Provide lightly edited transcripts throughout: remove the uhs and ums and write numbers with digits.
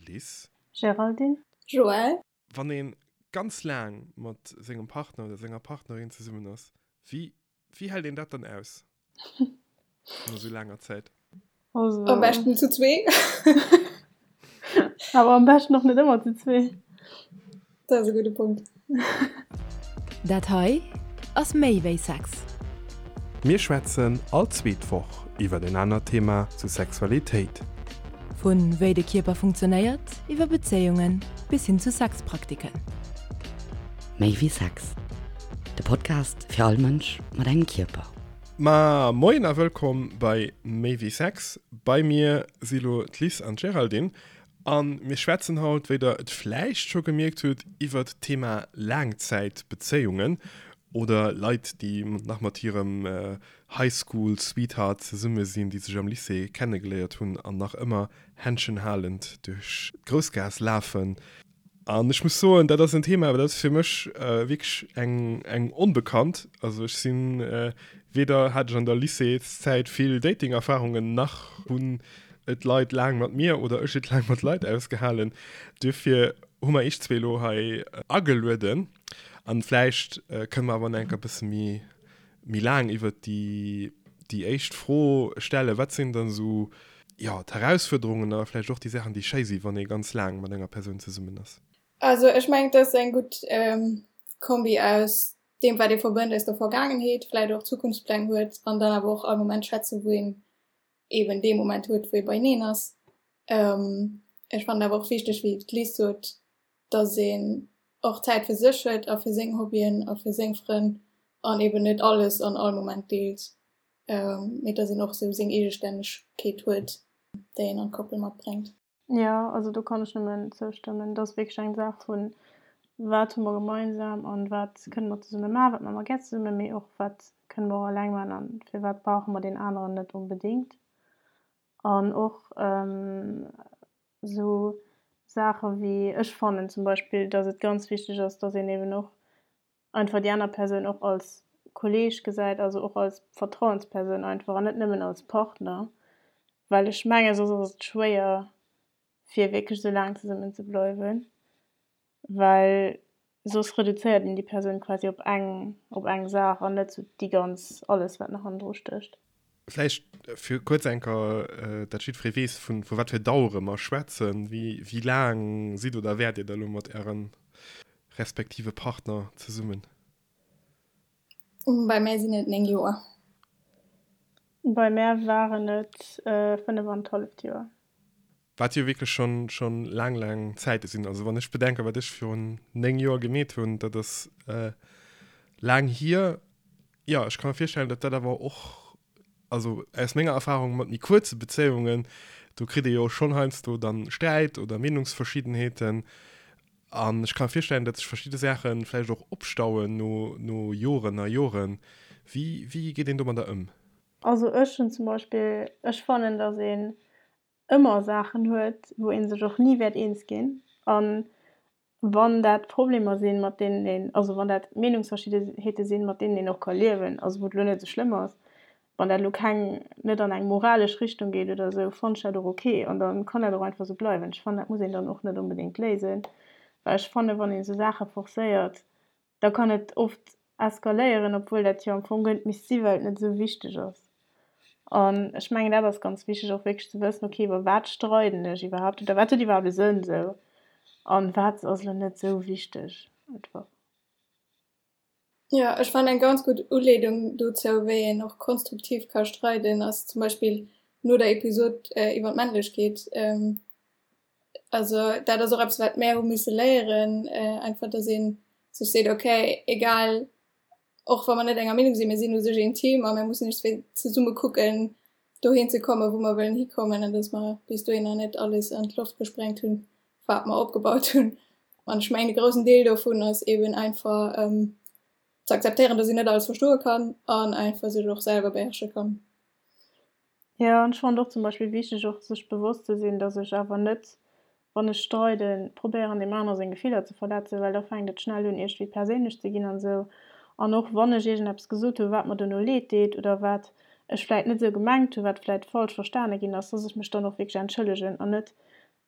Liz. Géraldine. Joël. Wann ee ganz laang mat sengem Partner oder senger Partnerin zesummen ass, wéi wéi hält een dat dann aus no sou laanger Zäit? Also. Am beschten zu zwee. Awer am beschten och net ëmmer zu zwee. Dat ass e gudde Punkt. Dat hei ass méi wéi Sex. Mir schwätzen all zweet Woch iwwer en anert Thema zu Sexualitéit. Vu wéi de Kierper funktionéiert, iwwer Bezéiungen bis hin zu Sexpraktiken. Méi wéi Sex, de Podcast fir all Mënsch mat engem Kierper. Ma moien a wëllkomm bei Méi wéi Sex. Bei mir si lo d'Liz an d'Géraldine a mir schwätzen haut, wéi der et vläicht scho gemierkt hutt, iwwert d'Thema Laangzäitbezéiungen oder Leit, déi nach mat hirem High School Sweetheart zesumme sinn, déi sech am Lycée kennegeléiert hunn an nach ëmmer Händschen halend duerch d'Groussgaass lafen. An ech muss soen, dat ass en Thema, dat ass fir mech wierklech eng, eng Onbekannt. Also ech sinn, weder hat ech an der Lycéeszäit vill Dating-Erfarungen, nach hunn et Leit laang mat mir oder ech et laang mat Leit ausgehalen. Duerfir hu mer iech zwee elo hei agelueden. An vläicht kënne mer awer nach eng Kéier e bësse méi, méi laang iwwert déi, déi éischt Fro stellen, Wat sinn dann esou, jo, d'Herausfuerderungen a vläicht och déi Saachen, déi schéi sinn, wann ee ganz laang mat enger Persoun zesummen ass? Also ech mengen, et ass eng gutt Kombi aus deem, wat ee verbënnt aus der Vergaangenheet, vläicht och Zukunftspläng huet an dann awer och all Moment schwätzen, wou een eben dee Moment huet, wou ee beieneen ass. Ech fannen awer och wichteg, wéi d'Liz sot, dass een och Zäit fir sech huet a fir seng Hobbyen a fir seng Frënn an eben net alles an all Moment deelt, mee dass een och sou seng Eegestännegkeet huet, déi een an d'Koppel matbréngt. Jo, also do kann ech nëmmen zoustëmmen. Et ass wierklech eng Saach vun, wat hu mer gemeinsam an wat kënne mer zesumme maachen, wat maache mer gär zesummen, mee och wat kënne mer och eleng maachen an firwat brauche mer deen aneren net onbedéngt. An och Esou Saache wéi, ech fannen zum Beispill, datt et ganz wichteg ass, datt een eben och einfach déi aner Persoun och als Kolleeg gesäit, also och als Vertrauenspersoun einfach an net nëmmen als Partner, well ech menge soss ass et schwéier fir wierklech esou laang zesummen ze bleiwen. Well soss reduzéiert een déi Persoun quasi op eng, op eng Saach an net sou déi ganz, alles wat nach hannendru stécht. Vläicht fir kuerz eng Kéier, dat jiddweree weess, vu vu wat fir Dauere mer schwätzen. Wéi, wéi laang sidd oder wäert Dir da lo mat Äre respektive Partner zesummen? Bei mär sinn et 9 Joer. Bei mär waren et 5 an d'halleft Joer. Wat jo wierklech schonn, schonn laang, laang Zäite sinn. Also wann ech bedenken, wat ech virun 9 Joer gemeet hunn, dat ass laang hier. Jo, ech ka mer virstellen, datt dat awer och, also aus menger Erfahrung mat méi kuerze Bezéiungen, do kritt ee jo schonn heiansdo dann Sträit oder Meenungsverschiddenheeten. An ech ka mer virstellen, datt sech verschidde Saache vläicht och opstauen no, no Joren a Joren. Wéi, wéi geet een domadder ëm? Also ech hunn zum Beispill, ech fannen, datt een ëmmer Saachen huet, wou ee sech och ni wäert eens ginn. A wann dat Problemer sinn, mat deenen een, also wann dat Meenungsverschiddenheete sinn, mat deenen een och ka liewen, also wou et elo net esou schlëmm ass, wann dat elo keng, net an eng moralesch Richtung geet oder esou, fannen ech dat och ok an da kann dat och einfach esou bleiwen. Ech fannen, dat muss een dann och net onbedéngt léisen, well ech fannen, wann een esou Saache forcéiert, da kann et oft eskaléieren, obwuel dat jo am Fong guer net misst si well et net esou wichteg ass. An ech mengen dat ass ganz wichteg och wierklech ze wëssen, ok iwwer wat streiden ech iwwerhaapt oder wat huet iwwerhaapt e Sënn esou an wat ass elo net esou wichteg einfach. Jo, ech fannen eng ganz gutt Uleedung dozou wéi een och konstruktiv ka streiden ass zum Beispill no der Episod iwwer d'Männlechkeet. Also dat ass och eppes wat mär hu misse léieren, einfach datt ee sech seet, okay, egal och wa mer net enger Meenung sinn, mir sinn u sech een Team a mir mussen iergendwéi zesumme kucken dohin ze kommen, wou mer wëllen hikommen an datt mer bis dohinner net alles an d'Loft gesprengt hunn, wat mer opgebaut hunn. An ech mengen e groussen Deel dovun ass eben einfach ze akzeptéieren, datt een net alles verstoe kann an einfach sech och selwer beherrsche kann. Jo, an ech fannen et och zum Beispill wichteg och sech bewosst ze sinn, dass ech awer net, wann ech streiden, probéieren deem anere seng Gefiller ze verletzen, well da fänkt et schnell un iergendwéi perséinlech ze ginn an esou. An och wann ech iergendeppes gesot hu wat mer dono leed deet oder wat ech vläit net esou gemengt hu, wat vläit falsch verstane ginn ass, dass ech mech dann och wierklech entschëllegen an net.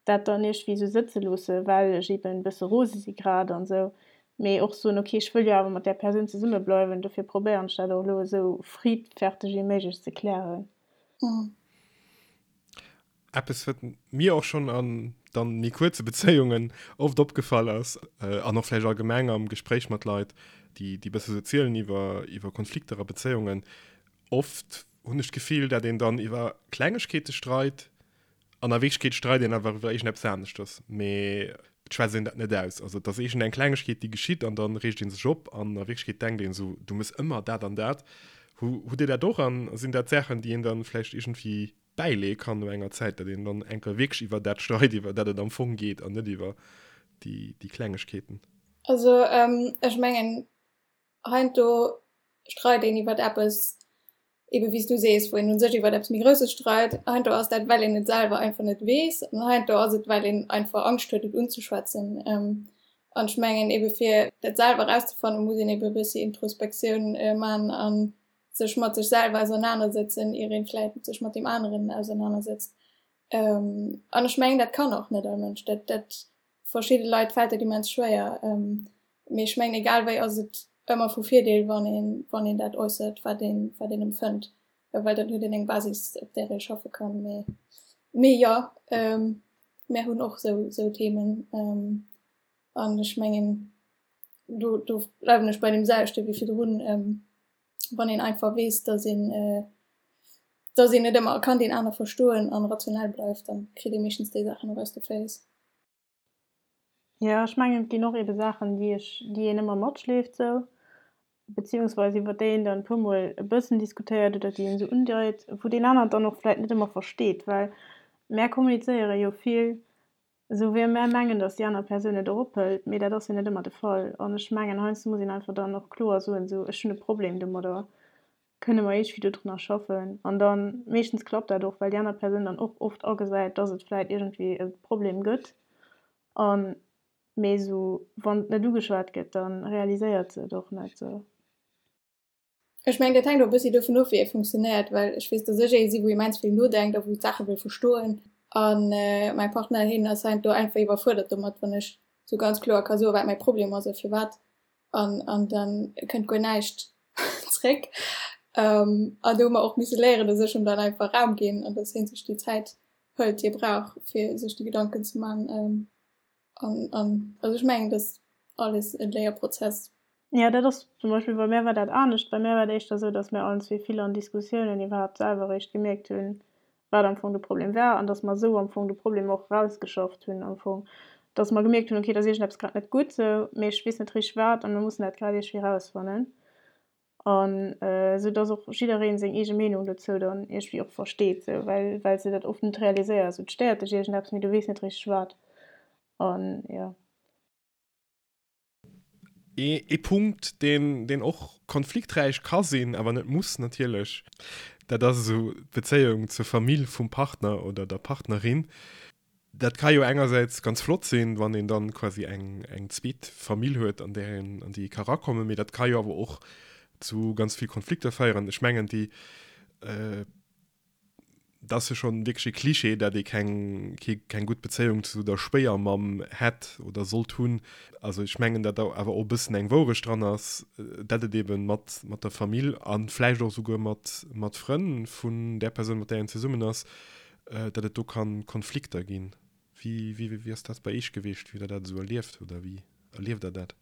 dat dann iergendwéi esou sëtze loosse well ech eben e bësse rose si grad an esou, mee och soen, ok ech wëll jo awer mat där Persoun zesumme bleiwen, dofir probéieren ech dat och elo esou friddferteg wéi méiglech ze klären. Eppes wat mir och schonn an dann méi kuerze Bezéiungen oft opgefall ass, an och vläicht allgemeng am Gespréich mat Leit, déi déi bësse sou zielen iwwer iwwer Konflikter a Bezéiungen, oft hunn ech d'Gefill, dat een dann iwwer Klengegkeete streit an a Wierklechkeet streit een awer iwwer iergendeppes aneschters, mee et schwätzt een dat net aus. Also et ass iergendeng Klengegkeet, déi geschitt an dann reegt ee sech op an a Wierklechkeet denkt een esou, du mëss ëmmer dat an dat. Hu hutt Dir dat och an sinn dat Saachen, déi een dann vläicht iergendwéi bäileeë kann no enger Zäit, datt een dann eng Kéier wierklech iwwer dat streit, iwwer dat et am Fong geet an net iwwer déi déi Klengegkeeten? Also ech mengen heiansdo streit een iwwer eppes, ebe wéi s du sees, wou een u sech iwwer eppes méi Grousses streit. Heiansdo ass dat, well een et selwer einfach net weess an heiansdo ass et, well een einfach Angscht huet, et unzeschwätzen. An ech mengen ebe fir dat selwer erauszefannen, muss een ebe e bëssi Introspektioun man a sech mat sech selwer ausernanersëtzen, ier een vläit sech mat deem aneren ausernanersetzt. An ech mengen, dat kann och net all Mënsch. Dat, dat verschidde Leit fält dat immens schwéier. Mee ech mengen, egal wéi ass et ëmmer vu Virdeel, wann een, wann een dat äussert, wat een, wat een empfënnt, well dann huet een eng Basis, op där ee schaffe kann. Mee, mee jo, mär hunn och sou, sou Themen. An ech mengen, do, do bleiwen ech bei deem selwechte wéi virdrun, wann een einfach weess, dass een, dass een net ëmmer kann deen aner verstoen an rationell bleift, dann kritt ee meeschtens déi Saachen och aus de Féiss. Jo, ech mengen, et ginn och ebe Saachen, déi ech, déi een ëmmer matschleeft sou, beziehungsweise iwwer déi een dann e puermol e bëssen diskutéiert oder déi een esou undeit, wou deen aneren dann och vläit net ëmmer versteet, well mär kommunizéiere jo vill esou wéi mär mengen, datt déi aner Persoun et och ophëlt, mee dat ass jo net ëmmer de Fall. An ech mengen, heiansdo muss een einfach dann och kloer soen, esou, ech hunn e Problem domadder, kënne mer iergendwéi dodrunner schaffen an dann, meeschtens klappt dat och, well déi aner Persoun dann och oft agesäit, dass et vläit iergendwéi e Problem gëtt an, mee esou wann et net ugeschwat gëtt, da realiséiert se et och net esou. Ech mengen, dat hänkt och e bëssi dovun of, wéi ee funktionéiert, well ech weess, dass ech ee si wou immens vill nodenkt a wou d'Saache wëll verstoen an mäi Partner, hien ass heiansdo einfach iwwerfuerdert domat, wann ech esou ganz kloer ka soen, wat mäi Problem ass a firwat an an dann kënnt guer näischt zréck. Ähm, an do hu mer och misse léieren, dass ech em dann einfach Raum ginn an dass hien sech déi Zäit hëlt, déi e brauch, fir sech déi Gedanken ze man. Ähm, an, an also ech mengen, dass alles e Léierprozess. Jo, dat ass zum Beispill, bei mär war dat anescht. Bei mär war et éischter esou, dass mär allen zwee vill an Diskussiounen iwwerhaapt selwer eréischt gemierkt hunn, wat am Fong de Problem war an dass mer esou am Fong de Problem och erausgeschafft hunn am Fong, dass mer gemierkt hunn, okay, et ass iergendeppes grad net gutt esou, mee ech weess net richteg wat a mir mussen dat grad iergendwéi erausfannen an esou dass och jidderee seng eege Meenung dozou dann iergendwéi och versteet esou, well well s de dat oft net realiséiers, esou et stéiert dech iergendeppes, mee du weess net richteg wat an jo. Ee Punkt, deen, deen och konflikträich ka sinn, awer net muss natierlech, dat ass esou d'Bezéiung zur Famill vum Partner oder der Partnerin. Dat ka jo engersäits ganz flott sinn, wann een dann quasi eng, eng zweet Famill huet, an där een, an déi ee ka erakommen, mee dat ka jo awer och zu ganz vill Konflikter féieren. Ech mengen, déi, Dat ass jo schonn wierklech e Klischee, dat ee keng, keng gutt Bezéiung zu der Schwéiermamm hätt oder sollt hunn. Also ech mengen, dat do awer och e bëssen eng Wourecht dran ass, dat et eebe mat, mat der Famill a vläicht och esouguer mat, mat Frënn vun där Persoun, mat där een zesummen ass, dat et do ka Konflikter ginn. Wéi, wéi, wéi ass dat bei Iech gewiescht, wéi hutt Der dat esou erlieft oder wéi erlieft Der dat?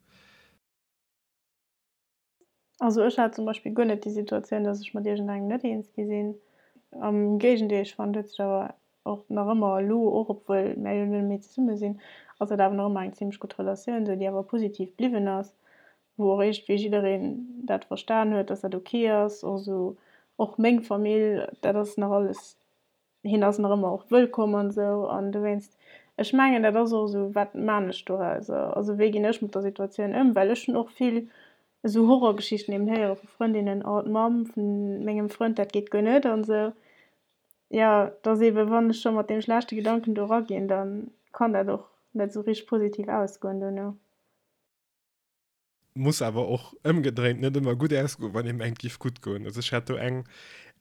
Also ech hat zum Beispill guer net déi Situatioun, dass ech mat iergendengem net eens gi sinn. Am Géigendeel, ech fannen, et huet sech awer och nach ëmmer elo, och obwuel mär jo net méi zesumme sinn, ass dat awer nach ëmmer eng zimlech gutt Relatioun esou, déi awer positiv bliwwen ass, wou och iergendwéi jiddereen dat verstan huet, dass dat ok ass. Och esou och meng Famill, dat ass nach alles hien ass nach ëmmer och wëllkomm an esou an dowéinst, ech mengen dat ass och esou, wat maan ech dorauser, also wéi ginn ech mat der Situatioun ëm, well ech hunn och vill esou Horrorgeschichten eben héiere vu Frëndinnen, oh d'Mamm vun mengem Frënd, dat geet guer net an esou. Jo, et ass eben, wann ech scho mat deem schlechte Gedanken do eraginn, da kann dat och net esou richteg positiv ausgoen dono. Muss awer och ëmgedréint net ëmmer gutt ausgoen, wann ee mengt, giff gutt goen. Also ech hat do eng,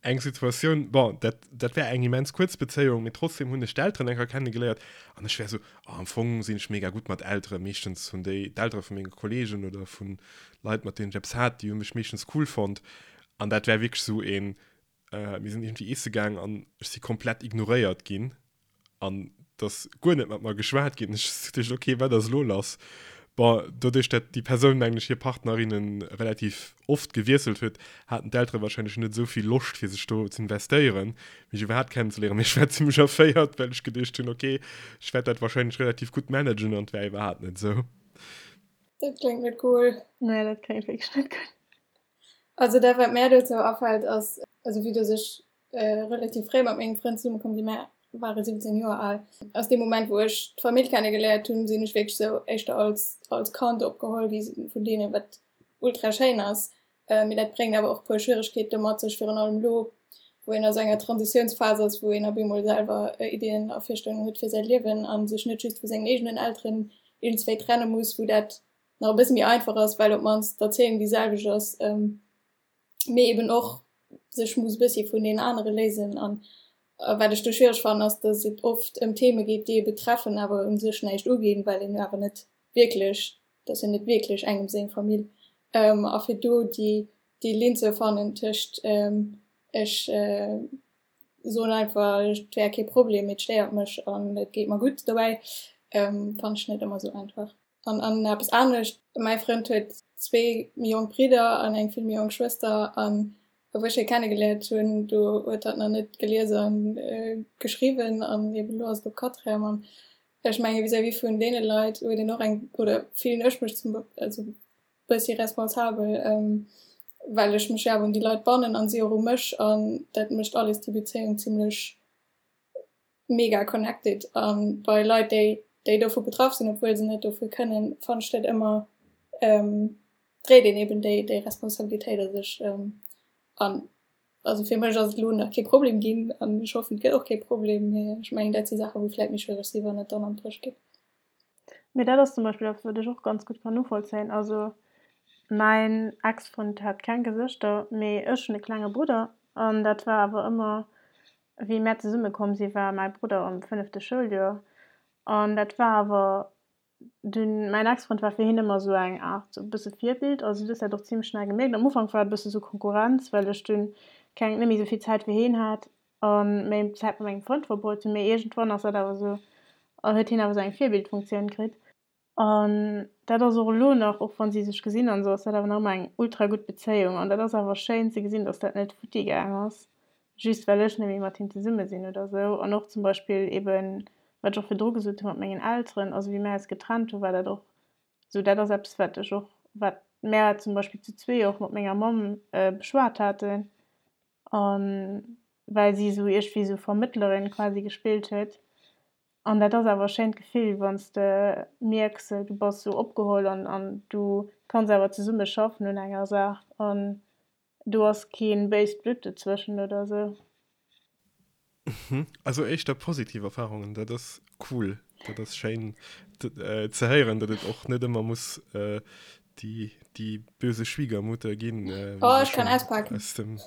Eng Situatioun, bon, dat, dat war eng immens kuerz Bezéiung, mee trotzdem hunn ech d'Elteren eng Kéier kennegeléiert an ech war esou, oh, am Fong sinn ech mega gutt mat Elteren. Meeschtens hunn déi, d'Eltere vu menge Kolleegen oder vu Leit, mat deenen ech eppes hat, déi hu mech meeschtens cool fonnt. An dat war wierklech esou een, mir sinn iergendwéi iesse gaang an ech si komplett ignoréiert ginn. An dass guer net mat mer geschwat ginn. Ech hu geduecht, okay, wat ass elo lass? Bon, doduerch dat déi Persoun, mengen ech, hir Partnerinne relativ oft gewiesselt huet, haten d'Eltere wahrscheinlech net esou vill Loscht, fir sech do z'investéieren, mech iwwerhaapt kennenzeléieren. Mee ech war zimmlech erféiert, well ech geduecht hunn, okay, ech wäert dat wahrscheinlech relativ gutt managen, an et war iwwerhaapt net esou. Dat kléngt net cool. Nee, dat kléngt wierklech net gutt. Also dat, wat mär dozou afält, ass, also vue dass ech relativ fréi mat mengem Frënd zesumme komm sinn, mär ware 17 Joer al. Aus deem Moment wou ech d'Famill kenne geléiert hunn, sinn ech wierklech sou éischter als als Kand opgeholl gi vun deenen, wat ultra schéin ass. Mee dat bréngt awer och puer Schwieregkeete mat sech, virun allem elo wou een a sou enger Transitiounsphas ass, wou een op eemol selwer Iddien a Virstellungen huet fir säi Liewen a sech net just vu sengen eegenen Elteren iergendswéi trenne muss, wou dat nach e bësse méi einfach ass, well op d'mannst d'Erzéiung déi selwecht ass. Mee eben och sech muss e bëssi vun deenen anere léisen. An wat ech do schwiereg fannen, ass, datt et oft ëm Theme geet, déi ee betreffen, awer u sech näischt uginn, well een jo awer net wierklech, dat ass jo net wierklech engem seng Famill. A fir do déi, déi Linn ze fannen tëscht ech soen einfach, et wär kee Problem, mee et stéiert mech an et geet mer gutt dobäi, fannen ech net ëmmer esou einfach. An an eppes anescht, mäi Frënd huet zwee méi jonk Bridder an eng vill méi jonk Schwëster an wou ech hie kennegeléiert hunn, do huet hatt nach net gelies a geschriwwen an eben elo ass et op Quatrième an ech menge vis-à-vis vun deene Leit huet een och eng, oder fillen ech mech zum also bëssi responsabel, well ech mech jo awer un déi Leit bannen an si och u mech an dat mécht alles déi Bezéiung zimlech mega connected an bei Leit déi déi dovu betraff sinn, obwuel se net dofir kënnen, fannen ech dat ëmmer dréit een eben déi déi Responsabilitéit a sech an also fir mech ass et elo nach kee Problem ginn an ech hoffen et gëtt och kee Problem, mee ech mengen dat si Saache wou vläit méi schwiereg si wann et dann an d'Bréch geet. Mee dat ass zum Beispill eppes wat ech och ganz gutt kann novollzéien. Also mäin Ex-Frënd hat keng Gesëschter, mee ech hunn e klenge Brudder an dat war awer ëmmer Wéi mär zesumme komm si war mäi Brudder am fënnefte Schouljoer an dat war awer dunn, mäin Ex-Frënd war fir hien ëmmer esou eng Aart e bësse Virbild, also du hues dat och zimmlech schnell gemierkt. Am Ufank war et e bësse sou Konkurrenz, well ech dunn keng, net méi esou vill Zäit fir hien hat a méi Zäit mat mengem Frënd verbruet hunn, mee iergendwann ass dat awer esou, huet hien awer esou eng Virbildfunktioun kritt. An dat ass och elo nach, och wann si sech gesinn an esou, ass dat awer nach ëmmer eng ultra gutt Bezéiung. An dat ass awer schéin ze gesinn, dass dat net futti gaang ass, just well ech net méi mat him zesumme sinn oder esou. An och zum Beispill eben, wat ech och virdru gesot hu mat mengen Elteren, also wéi mär eis getrennt hu war dat och esou, dat ass eppes wat ech och, wat mär zum Beispill zu zwee och mat menger Mamm beschwat haten, a well si esou iergendwéi esou Vermëttlerin quasi gespillt huet. An dat ass awer e schéint Gefill, wann s de mierks, du bass esou opgeholl an an du kanns awer zesumme schaffen un enger Saach an do ass kee béist Blutt dozwëschen oder esou. Also éischter positiv Erfarungen, dat ass cool, dat ass schéin ze héieren, datt et och net ëmmer muss déi déi böse Schwiegermutter ginn. Oh, ech kann auspaken. Aus dem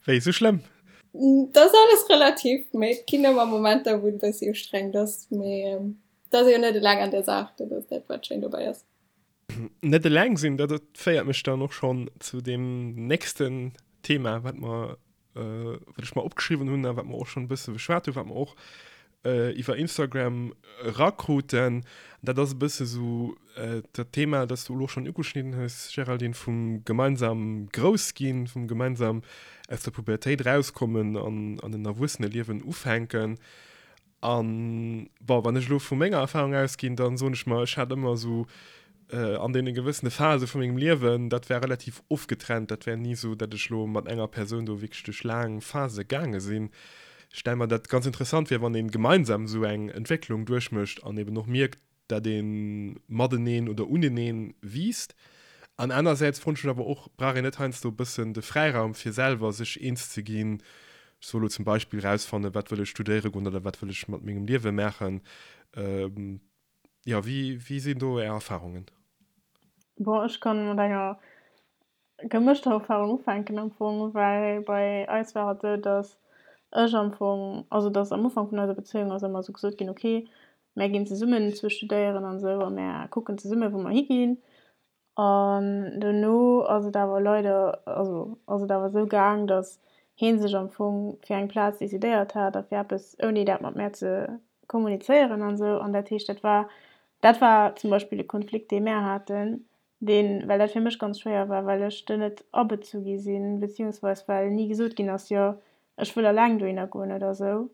Wéi, sou schlëmm? Dat ass alles relativ, mee et ginn ëmmer Momenter, wou et e bëssi ustrengend ass, mee et ass ee jo net eleng an der Saach, dat ass dat, wat schéin dobäi ass. Net eleng sinn, dat féiert mech dann och schonn zu deem nächsten Thema, wat mer wat ech mer opgeschriwwen hunn a wat mer och schonn e bësse beschwat hunn, wat mer och iwwer Instagram erakruten. Dat ass e bësse sou dat Thema, dat s du elo schonn ugeschnidden hues, Géraldine, vum gemeinsam Groussginn, vum gemeinsam aus der Pubertéit erauskommen an an en Erwuesseneliewen ufänken. An, bon, wann ech elo vu menger Erfahrung ausginn, dann soen ech mer, ech hat ëmmer esou an deene gewëssene Phase vu mengem Liewen, dat war relativ ofgetrennt, dat war ni esou, datt ech elo mat enger Persoun do wierklech duerch laang Phase gaange sinn. Ech stelle mer dat ganz interessant vir, wann ee gemeinsam esou eng Entwécklung duerchmécht an eben och mierkt, dat ee mateneen oder uneneen wiisst. An anersäits froen ech mech awer och, brauch een net heiansdo e bëssen de Fräiraum fir selwer sech eens ze ginn, ech soe lo zum Beispill rausfannen, wat wëll ech studéiere goen oder wat wëll ech mat mengem Liewe maachen. Jo, wéi, wéi sinn do Är Erfarungen? Bon, ech kann mat enger. Gemëschter Erfahrung ufänken am Fong, well bei eis war et esou, dass ech am Fong, also dass am Ufank vun eiser Bezéiung ass ëmmer esou gesot ginn, ok, mär ginn zesummen zwou studéieren an esou a mär kucken zesumme wou mer higinn. An dono ass et awer leider, also ass et awer esou gaang, dass hee sech am Fong fir eng Plaz decidéiert hat a fir eppes ouni dat mat mär ze kommunizéieren an esou. An dat heescht, dat war, dat war zum Beispill e Konflikt dee mär haten, deen, well dat fir mech ganz schwéier war, well ech do net abezu gi sinn, beziehungsweis well ni gesot ginn ass, jo ech wëll alleng dohinner goen oder esou,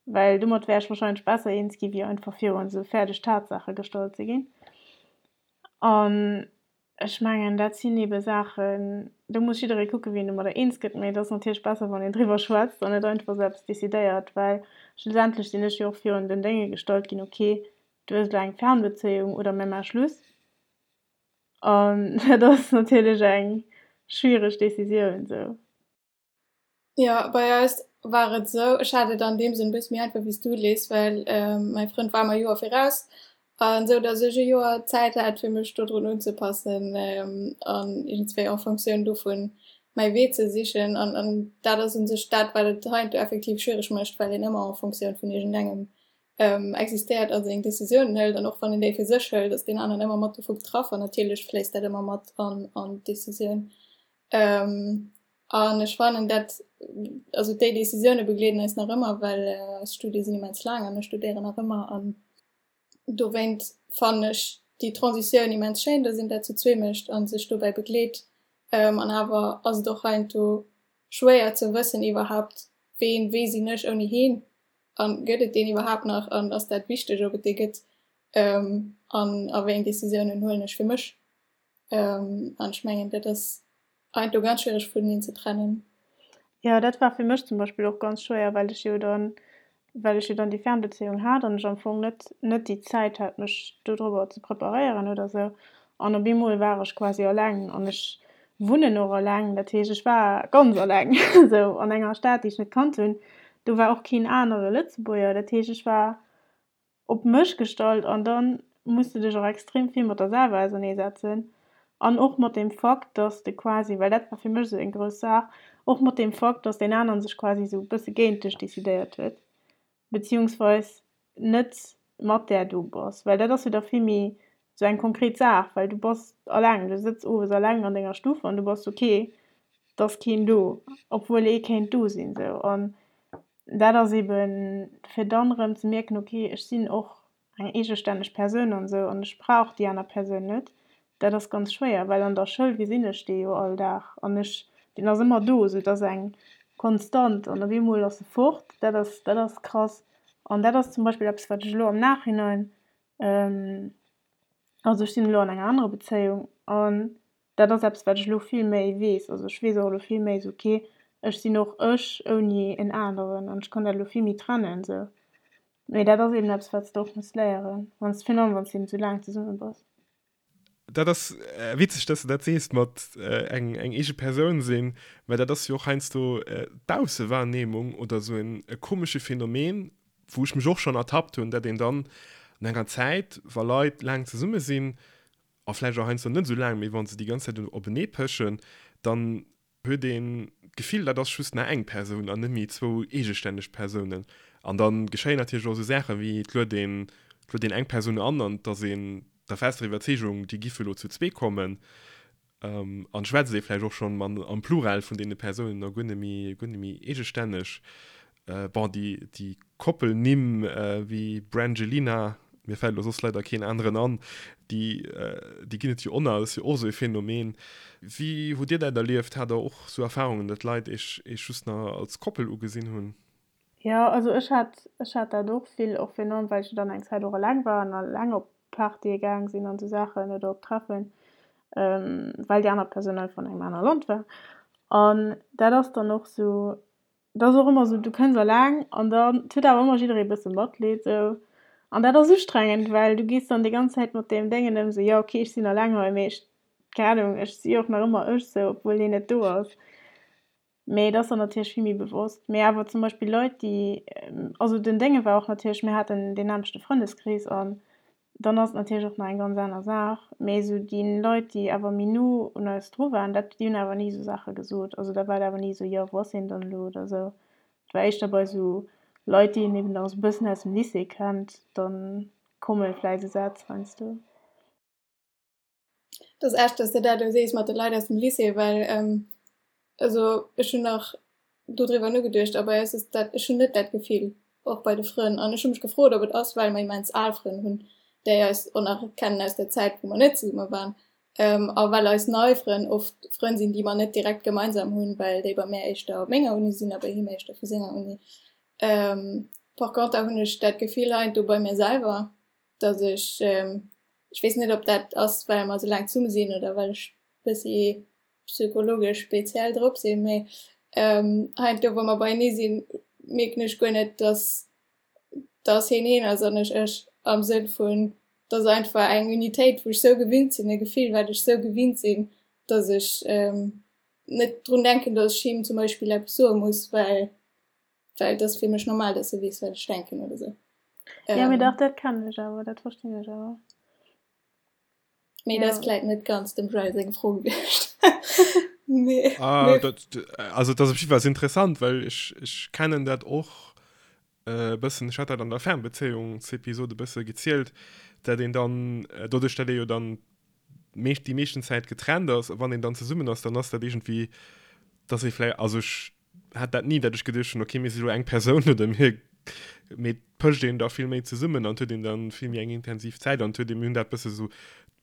well domat wär ech wahrscheinlech besser eens gi wéi einfach virun esou fäerdeg Tatsaache gestallt ze ginn. An ech mengen, dat sinn ebe Saachen, do muss jidderee kucke wéi en domadder eens gëtt, mee et ass natierlech besser wann een driwwer schwätzt an net einfach esou eppes decidéiert, well schlussendlech sinn ech jo och virun den Dénge gestallt ginn, ok, du hues elo eng Fernbezéiung oder mir maache Schluss. An dat ass natierlech eng schwiereg Decisioun sou. Jo, bei eis war et esou, ech hat et an deem Sënn e bësse méi einfach wéi s du, Liz, well mäi Frënd war mer e Joer viraus an esou datt ech e Joer Zäit hat fir mech dodrun unzepassen an iergendswéi en Fonctioun dovun mäi Wee ze sichen. An an dat ass u sech dat wat et heiansdo effektiv schwiereg mécht, well een ëmmer en Fonctioun vun iergendengem existéiert a seng Decisiounen hëlt an och wann een déi fir sech hëlt, ass deen aneren ëmmer mat dovu betraff an natierlech fléisst dat ëmmer mat an an d'Decisioun. An ech fannen dat, also déi Decisioune begleeden eis nach ëmmer, well eis Studie sinn immens laang an ech studéieren nach ëmmer an dowéint fannen ech déi Transitioun immens schéin, datt een dat zu zwee mécht a sech dobäi begleet. An awer ass et och heiansdo schwéier ze wëssen iwwerhaapt, ween, wee sinn ech ouni heen An gëtt et deen iwwerhaapt nach? An ass dat wichteg, ob et dee gëtt? An a wéi eng Decisiounen huelen ech fir mech? An ech mengen, dat ass heiansdo ganz schwiereg vuneneen ze trennen. Jo, dat war fir mech zum Beispill och ganz schwéier, well ech jo dann, well ech jo dann déi Fernbezéiung hat an ech am Fong net, net déi Zäit hat, mech dodrobber ze preparéieren oder sou. An op eemol war ech quasi alleng an ech wunnen och alleng, dat heescht ech war ganz alleng esou an enger Stad, déi ech net kannt hunn. Do war och keen anere Lëtzebuerger, dat heescht ech war op mech gestallt an da muss de dech och extrem vill mat der selwer auserneesetzen an och mat dem Fakt, dass de quasi, well dat war fir mech esou eng grouss Saach, och mat deem Fakt, dass deen aneren sech quasi esou e bësse géint dech decidéiert huet. Beziehungsweis net mat där du bass, well dat ass jo da vill méi sou eng konkret Saach, well du bass alleng, du sëtz owes alleng an denger Stuff an du bass ok, et ass keen do, obwuel ee kéint do sinn sou. An dat ass eben fir dann erëm ze mierken, ok ech sinn och eng eegestänneg Persoun an esou an ech brauch déi aner Persoun net, dat ass ganz schwéier, well an der Schoul gesinn ech dee jo all Dag an ech, deen ass ëmmer do, esou et ass eng Konstant an op eemol ass e fort, dat ass, dat ass krass. An dat ass zum Beispill eppes, wat ech elo am Nachhinein, also ech sinn elo an enger anerer Bezéiung an dat ass eppes, wat ech elo vill méi weess, also ech weess och elo vill méi esou, okay, ech sinn och ech ouni en aneren an ech kann dat elo vill méi trennen esou. Mee dat ass eben eppes, wat s de och muss léieren, wann s, virun allem wann s de eben esou laang zesumme bass. Dat ass witzeg, dass de dat sees mat eng eng eege Persoun sinn, well dat ass jo och heiansdo d'Aussewahrnehmung oder esou en e komesche Phänomen, wou ech mech och schonn ertappt hunn, dat een dann no enger Zäit, wa Leit laang zesumme sinn, a vläicht och heiansdo net esou laang, mee wa se déi ganz Zäit openee pechen, dann huet een d'Gefill, dat ass just nach eng Persoun an net méi zwou eegestänneg Persounen. An da geschéien natierlech och esou Saachen, wéi et luet een, et luet een eng Persoun an an et ass een der fester Iwwerzeegung, déi giffe elo zu zwee kommen. An schwätzt ee vläicht och schonn am Plural vun deene Persounen a guer net méi, guer net méi eegestänneg. Bon, déi, déi Koppelnimm wéi Brangelina, mir fält elo soss leider keen aneren an, déi, déi ginn et jo och nach, dat ass jo och esou e Phänomen. Wéi hutt Dir dat erlieft? Hat Der och esou Erfarungen, datt Leit Iech, Iech just nach als Koppel ugesinn hunn? Jo, also ech hat, ech hat dat och vill, och virun allem well ech jo dann eng Zäit och eleng war an eleng op Partye gaang sinn an esou Saachen oder op Treffen, well déi aner Persoun einfach an engem anere Land war. An dat ass dann och esou, Et ass och ëmmer esou, du kënns eleng an dann, et huet awer ëmmer jidderee e bësse Matleed esou. An dat ass ustrengend, well du gees dann déi ganz Zäit mat deem Déngen ëm, esou, jo ok, ech sinn eleng hei, mee ech, keng Ahnung, ech si och nach ëmmer ech esou, obwuel hien net do ass. Mee et ass dann natierlech vill méi bewosst. Mee awer zum Beispill Leit, déi, also den Dénge war och natierlech, mir haten deen nämmlechte Frëndeskrees an. Dann ass et natierlech och nach eng ganz aner Saach. Mee esou déi Leit, déi awer méi no un eis dru waren, dat, déi hunn awer ni esou Saache gesot. Also da war et awer ni esou, jo, wou ass hien dann elo oder esou. Et war éischter bei esou Leit, déi een eben nach esou e bëssen aus dem Lycée kennt, da komme vläicht esou Sätz heiansdo. Dat ass echt, dass de dat elo sees mat de Leit aus dem Lycée, well also ech hunn nach dodriwwer nogeduecht a bei eis ass dat, ech hunn net dat Gefill, och bei de Frënn. An ech hu mech gefrot, ob et ass, well mer immens al Frënn hunn, déi eis och nach kennen aus der Zäit, wou mer net zesumme waren, a well eis nei Frënn oft Frënn sinn, déi mer net direkt gemeinsam hunn, well déi bei mär éischter op menger Uni sinn a bei him éischter vu senger Uni. Par conter hunn ech dat Gefill heiansdo bei mir selwer, dass ech, ech weess net, ob dat ass, well mer esou laang zesumme sinn oder well ech e bëssi psychologesch speziell drop sinn, mee heiansdo wa mer beienee sinn, mierken ech guer net, dass dass heen heen ass an ech ech, am Sënn vun, et ass einfach eng Unitéit, wou ech sou gewinnt sinn, e Gefill, wat ech sou gewinnt sinn, dass ech net drun denken, dass ech him zum Beispill eppes soe muss, well well et ass fir mech normal, dass e weess, wat ech denken oder sou. Jo, mee dach, dat kennen ech awer, dat verstinn ech awer. Mee dat ass vläit net ganz dem Joël seng Fro gewiescht. Nee. Ah, dat, also dat ass op jiddwer Fall interessant, well ech, ech kennen dat och e äh, bëssen, ech hat dat an der Fernbezéiungsepisode e bësse gezielt, dat een dann, äh, doduerch dat ee jo dann meescht, déi meeschten Zäit getrennt ass, a wann een dann zesummen ass, dann ass dat iergendwéi, dass ee vläicht, also ech hat dat ni, dat ech geduecht hunn, okay, mir si lo eng Persoun oder mir, mee et pëscht een da vill méi zesummen an et huet een dann vill méi eng intensiv Zäit an et huet een, mir hunn dat bësse sou,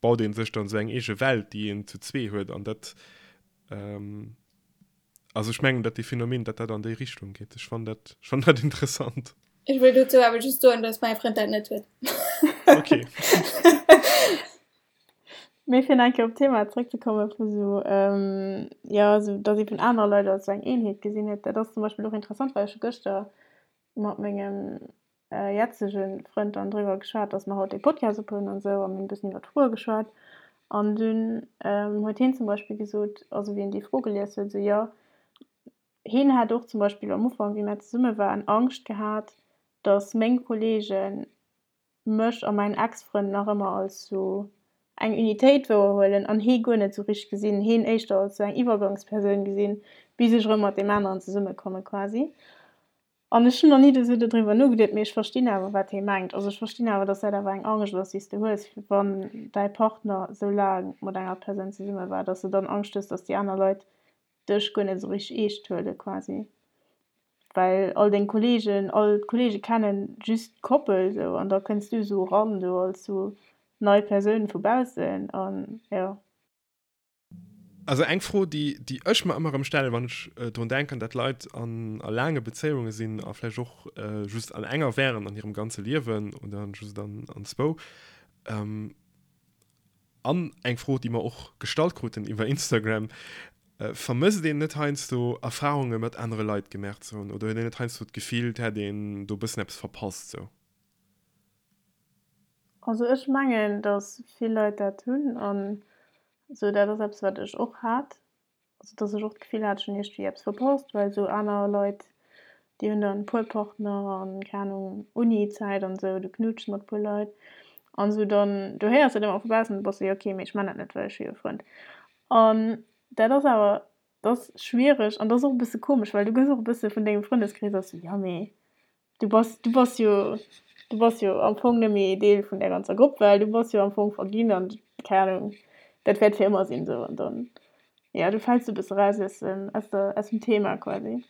baut ee sech dann sou eng eege Welt, déi een zu zwee huet an dat, also ech mengen, dat dee Phänomen, dat dat an déi Richtung geet. Ech fannen dat, ech fannen dat interessant. Ech wëll dozou awer just soen, dass mäi Frënd dat net huet. Okay. Mee fir nach eng Kéier op d'Thema zréckzekomme vu sou, jo, sou datt ee vun anere Leit als sou eng Eenheet gesinn huet, dat ass zum Beispill och interessant, well ech hu gëschter mat mengem jetzege Frënd dann driwwer geschwat, datt mer haut dee Podcast ophuelen an esou a mir hunn e bëssen iwwer d'Froe geschwat an dunn huet hien zum Beispill gesot, also wéi en déi Fro gelies huet, esou jo, hien hätt och zum Beispill am Ufank, wéi mär zesumme waren, Angscht gehat, datt meng Kollegen mech a mäin Ex-Frënd nach ëmmer als sou eng Unitéit wouerhuelen an hee guer net sou richteg gesinn, heen éischter als sou eng Iwwergangspersoun gesinn, bis ech erëm mat deem aneren zesummekomme quasi. An ech hunn nach ni esou dodriwwer nogeduet, mee ech verstinn awer wat hee mengt. Also ech verstinn awer, dass dat awer eng Angscht ass, déi s de hues, wann däi Partner sou laang mat enger Persoun zesumme war, dass de dann Angscht hues, dass déi aner Leit dech guer net esou richteg eescht huele quasi. Well all deng Kollegen, all d'Kollege kennen just d'Koppel esou an da kënns du esou eran do als sou nei Persoun vu baussen an jo. Also eng Fro, déi déi ech mer ëmmer erëm stellen, wann ech drun denken, dat Leit an a laange Bezéiunge sinn a vläicht och just an enger wären an hirem ganze Liewen oder just an an zwou, An eng Fro, déi mer och gestallt kruten iwwer Instagram, Vermësst een net heiansdo Erfarunge mat anere Leit gemaach ze hunn oder huet een net heiansdo d'Gefill, et hätt een do e bëssen eppes verpasst sou? Also ech mengen, datt vill Leit dat hunn an sou dat ass eppes wat ech och hat. Also dass ech och d'Gefill hat, ech hunn iergendwéi eppes verpasst, well esou aner Leit, déi hunn dann e puer Partner an, keng Ahnung, Uni-Zäit an esou, du knuutschs mat e puer Leit an esou, dann du héiers dat ëmmer vu baussen, du bass esou, jo okay, mee ech man dat net, well ech hu jo e Frënd. An dat ass awer, dat ass schwiereg an dat ass och e bësse komesch, well du gëss och e bësse vun dengem Frëndeskrees aus esou, jo mee Du bass, du bass jo, du bass jo am Fong net méi Deel vun där ganzer Grupp, well du bass jo am Fong verginn an keng Ahnung, dat wäert fir ëmmer sinn esou. An dann, jo, du fäls e bësse raus aus dem, aus der, aus dem Thema quasi.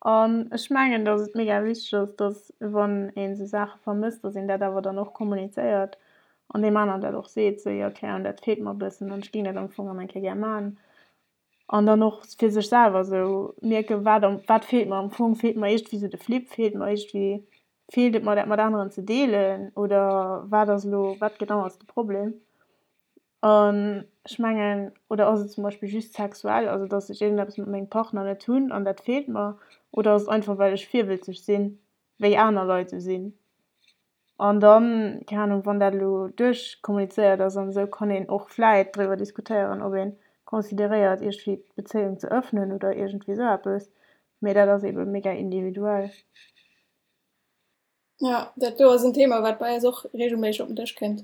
An ech mengen, datt et mega wichteg ass, datt wann een esou Saache vermësst, datt een dat awer dann och kommunizéiert an deem aneren dat och seet, esou, jo, keng Ahnung, dat feelt mer e bëssen an ech géing dat am Fong erëm eng Kéier gär maachen. An dann och fir sech selwer esou mierken, wat am, wat feelt mer am Fong, feelt mer iergendwéi esou de Flip, feelt mer iergendwéi, feelt et mer dat mat aneren ze deelen oder wat ass elo, wat genau ass de Problem? An ech mengen, oder ass et zum Beispill just sexuell, also datt ech iergendeppes mat mengem Partner net hunn an dat feelt mer, oder ass et einfach well ech virwëlzeg sinn, wéi aner Leit esou sinn? An dann, keng Ahnung, wann dat elo duerchkommunizéiert ass an esou, kann een och vläit driwwer diskutéieren, ob ee consideréiert, iergendwéi d'Bezéiung ze ëffnen oder iergendwéi esou eppes. Mee dat ass eebe mega individuell. Ja, dat do ass en Thema, wat bei eis och regelméisseg op den Dësch kënnt,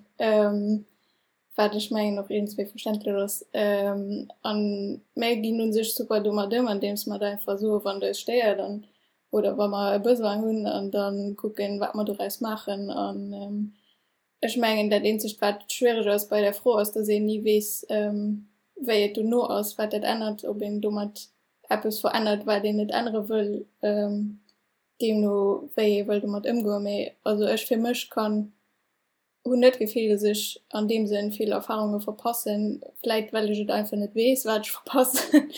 wat ech mengen och iergendswéi verständlech ass. An mär ginn u sech super domat ëm, andeems mer da einfach soen, wann et eis stéiert an oder wa mer e Besoin hunn an da kucken, wat mer doraus maachen. An ech mengen, dat eenzegt, wat schwiereg ass bei där Fro, ass, datt een ni weess, wéi et dono ass, wat dat ännert, ob een domat eppes verännert, wat een net ännere wëll. Deemno wéi ee wëll domat ëmgoen. Mee also ech fir mech kann, hunn net d'Gefill, datt ech an deem Sënn vill Erfarunge verpassen, vläit well ech et einfach net weess, wat ech verpassen.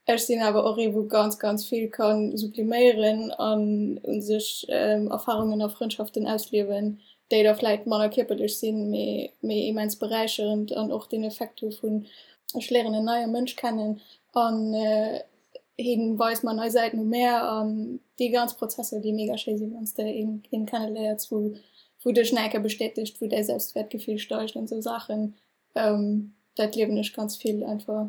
Ech sinn awer och ee wou ganz ganz vill ka subliméieren an u sech Erfarungen a Frëndschaften ausliewen, déi da vläit manner kierperlech sinn, mee mee immens beräicherend an och deen Effekt hu vun ech léieren en neie Mënsch kennen an hien weist mer nei Säiten u mär an déi ganz Prozesser, déi mega schéi sinn, wann s de een een kenneléiers, wou wou dech nach eng Kéier bestätegt, wou däi Selbstwertgefill steigt an esou Saachen. Dat liewen ech ganz vill einfach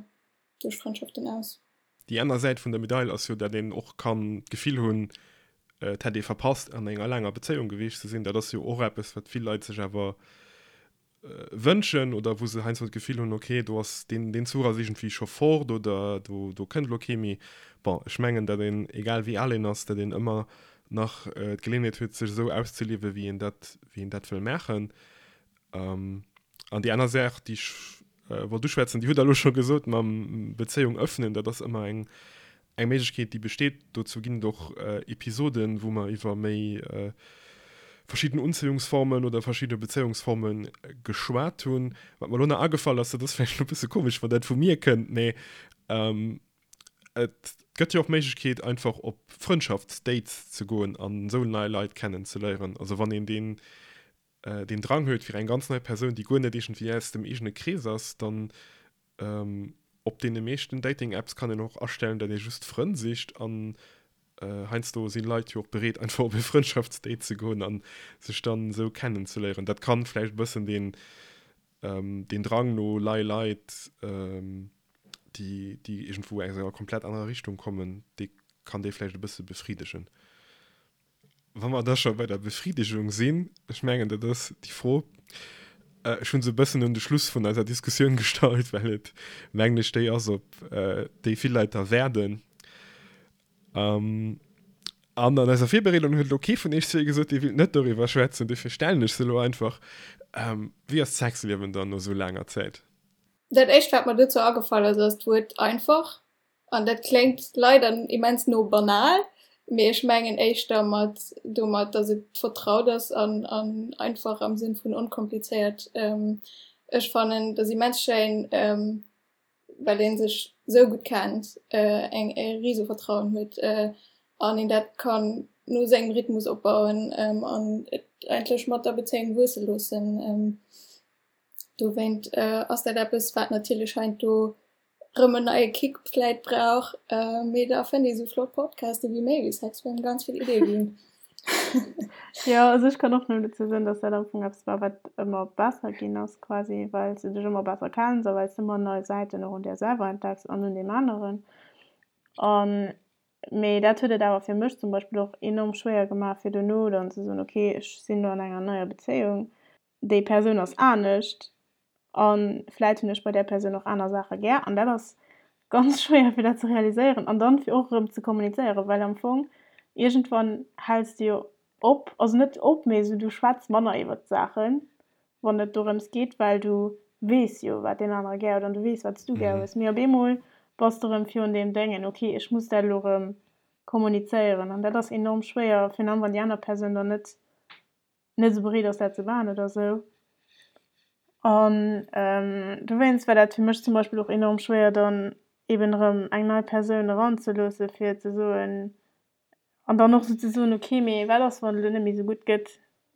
duerch Frëndschaften aus. Déi aner Säit vun der Medail ass jo, dat een och kann d'Gefill hunn, et hätt ee verpasst an enger laanger Bezéiung gewiescht ze sinn. Dat ass jo och eppes, wat vill Leit sech awer wënschen oder wou se heiansdo d'Gefill hunn, ok, do ass deen, deen Zuch ass iergendwéi scho fort oder do, do kënnt elo kee méi. Bon, ech mengen, datt een, egal wéi al een ass, datt een ëmmer nach d'Geleeënheet huet, sech esou auszeliewen, wéi een dat, wéi een dat wëll maachen. An déi aner Saach, déi ech wollt uschwätzen, déi hutt Der elo scho gesot, mam Bezéiung öffnen, dat ass ëmmer eng, eng Méiglechkeet, déi besteet. Dozou ginn et och Episoden, wou mer iwwer méi verschidden Unzéiungsformen oder verschidde Bezéiungsforme geschwat hunn. Wat mer elo nach agefall ass, dat ass vläicht elo e bësse komesch, wann dat vu mir kënnt, mee et gëtt jo och d'Méiglechkeet, einfach op Frëndschaftsdates ze goen an esou nei Leit kennenzeléieren. Also wann een deen, deen Drang huet fir eng ganz nei Persoun, déi guer net iergendwéi aus dem eegene Krees ass, dann op deene meeschten Dating-Apps kann een och astellen, datt ee just Frënn sicht an heiansdo si Leit jo och bereet einfach op e Frëndschaftsdate ze goen an sech dann esou kennenzeléieren. Dat kann vläicht e bëssen deen, deen Drang no lei Leit, déi, déi iergendwou aus enger komplett anerer Richtung kommen, dee kann dee vläicht e bësse befriddegen. Wa mer da scho bei der Befriedigung sinn, ech mengen, dat ass déi Fro, ech hu se e bëssen un de Schluss vun eiser Diskussioun gestallt, well et, mengen ech, déi ass, op déi vill Leit da waarden. An an eiser Virbereedung huet elo kee vun iech zwee gesot, dee wéilt net doriwwer schwätzen, dofir stellen ech se elo einfach, Wéi ass d'Sexliewen dann no esou laanger Zäit? Dat éischt, wat mer dozou agefall ass, ass d'Wuert einfach. An dat kléngt leider immens no banal, mee ech mengen éischter mat domat, datt et vertraut ass an an einfach am Sënn vun onkomplizéiert. Ech fannen, et ass immens schéin, well ee sech esou gutt kennt, eng e rise Vertrauen huet an een dat kann no sengem Rhythmus opbauen an et eigentlech mat der Bezéiung wuesse loossen. Dowéint ass dat eppes, wat natierlech heiansdo rëm en neie Kick vläit brauch, mee da fënnt ee sou flott Podcaste wéi Méi wéi Sex, wou engem ganz vill Iddie ginn. Jo, also ech kann och nëmmen dozou soen, dass dat am Fong eppes war, wat ëmmer besser ginn ass quasi, well s de dech ëmmer besser kenns a well s de ëmmer nei Säiten och un där selwer entdecks an un deem aneren. An, mee dat huet et awer fir mech zum Beispill och enorm schwéier gemaach, fir dono dann ze soen, okay, ech sinn elo an enger neier Bezéiung, déi Persoun ass anescht a vläit hunn ech bei där Persoun och aner Saache gär an dat ass ganz schwéier fir dat ze realiséieren an dann fir och erëm ze kommunizéieren, well am Fong iergendwann häls de jo op, also net op, mee esou du schwätz manner iwwert d'Saachen, wann et dorëms geet, well du weess jo wat deen anere gär huet an du weess wat s du gär hues, mee op eemol bass de erëm virun deem Déngen, ok ech muss dat elo erëm kommunizéieren an dat ass enorm schwéier, virun allem wann déi aner Persoun dann net net esou bereet ass dat ze maachen oder esou. An dowéinst war dat fir mech zum Beispill och enorm schwéier dann eben erëm eng nei Persoun eranzeloosse fir ze soen an dann och esou ze soen, okay mee wat ass wann et elo net méi esou gutt gëtt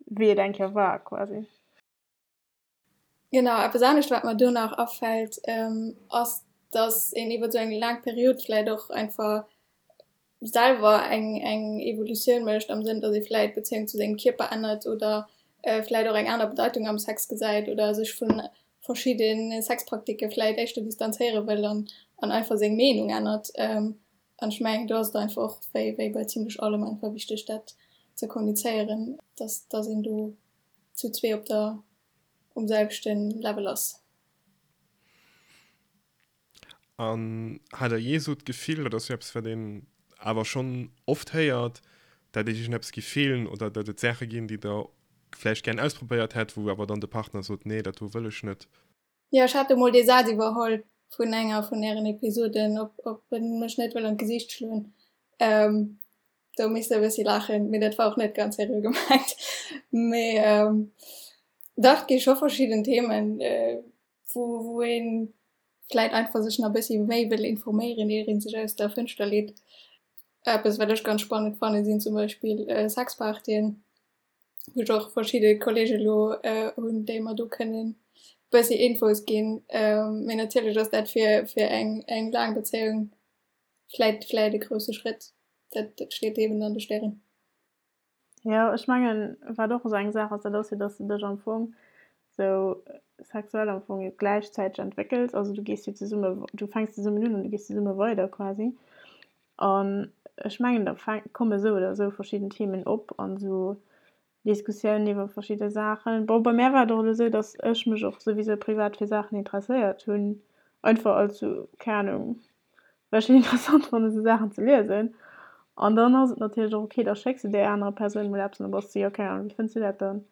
wéi et eng Kéier war quasi. Genau, eppes anescht wat mer do nach afält, ass datt een iwwer esou eng laang Period vläit och einfach selwer eng eng Evolutioun mécht am Sënn, datt ee vläit d'Bezéiung zu sengem Kierper ännert oder vläit och eng aner Bedeitung am Sex gesäit oder sech vu verschidde Sexpraktike vläit éischter distanzéiere wëll an an einfach seng Meenung ännert. An ech mengen, do ass et einfach och wéi wéi bei zimlech allem einfach wichteg, dat. ze kommunizéieren, dass dass een do zu zwee op der um selwechte Level ass. An hat der jee esou d'Gefill, dat ass jo eppes wat een awer schonn oft héiert, dat iech iergendeppes géif feelen oder dat et Saache ginn, déi der vläicht gären ausprobéiert hätt, wou awer dann de Partner sot, nee dat do wëll ech net? Jo, ech hat emol dee Saz iwwerholl vun enger vun ären Episoden, ob ob en mech net wëll an d'Gesiicht schloen. Do misst e bëssi laachen, mee dat war och net ganz seriö gemengt. Mee dach, et gi scho verschidden Themen, wou wou ee vläit einfach sech nach e bëssi méi wëll informéieren, ier ee sech aus der Fënschter leet. Eppes, wat ech ganz spannend fannen, sinn zum Beispill Sexpartyen. wou ech och verschidde Kollege lo hunn, déi mer do kënnen bëssi Infos ginn. Mee natierlech ass dat fir, fir eng, eng laang Bezéiung vläit, vläit e grousse Schrëtt. Dat, dat steet eben an de Stären. Jo, ech mengen, wat och esou eng Saach ass, dat ass jo, dass de dech am Fong esou sexuell am Fong jo gläichzäiteg entwéckels. Also du gees jo zesumme, du fänks zesummen un an du gees zesumme weider quasi. An ech mengen, da komme sou oder sou verschidden Themen op an esou Diskussiounen iwwer verschidde Saachen. Bon, bei mär war et och elo sou, datt ech mech och souwisou privat fir Saachen interesséiert hunn, einfach als sou, keng Anung, well ech et interessant fannen, esou Saachen ze liesen. An dann ass et natierlech och ok, da schécks de där anerer Persoun mol eppes an da bass de, jo, keng Anung, wéi fënns du dat dann?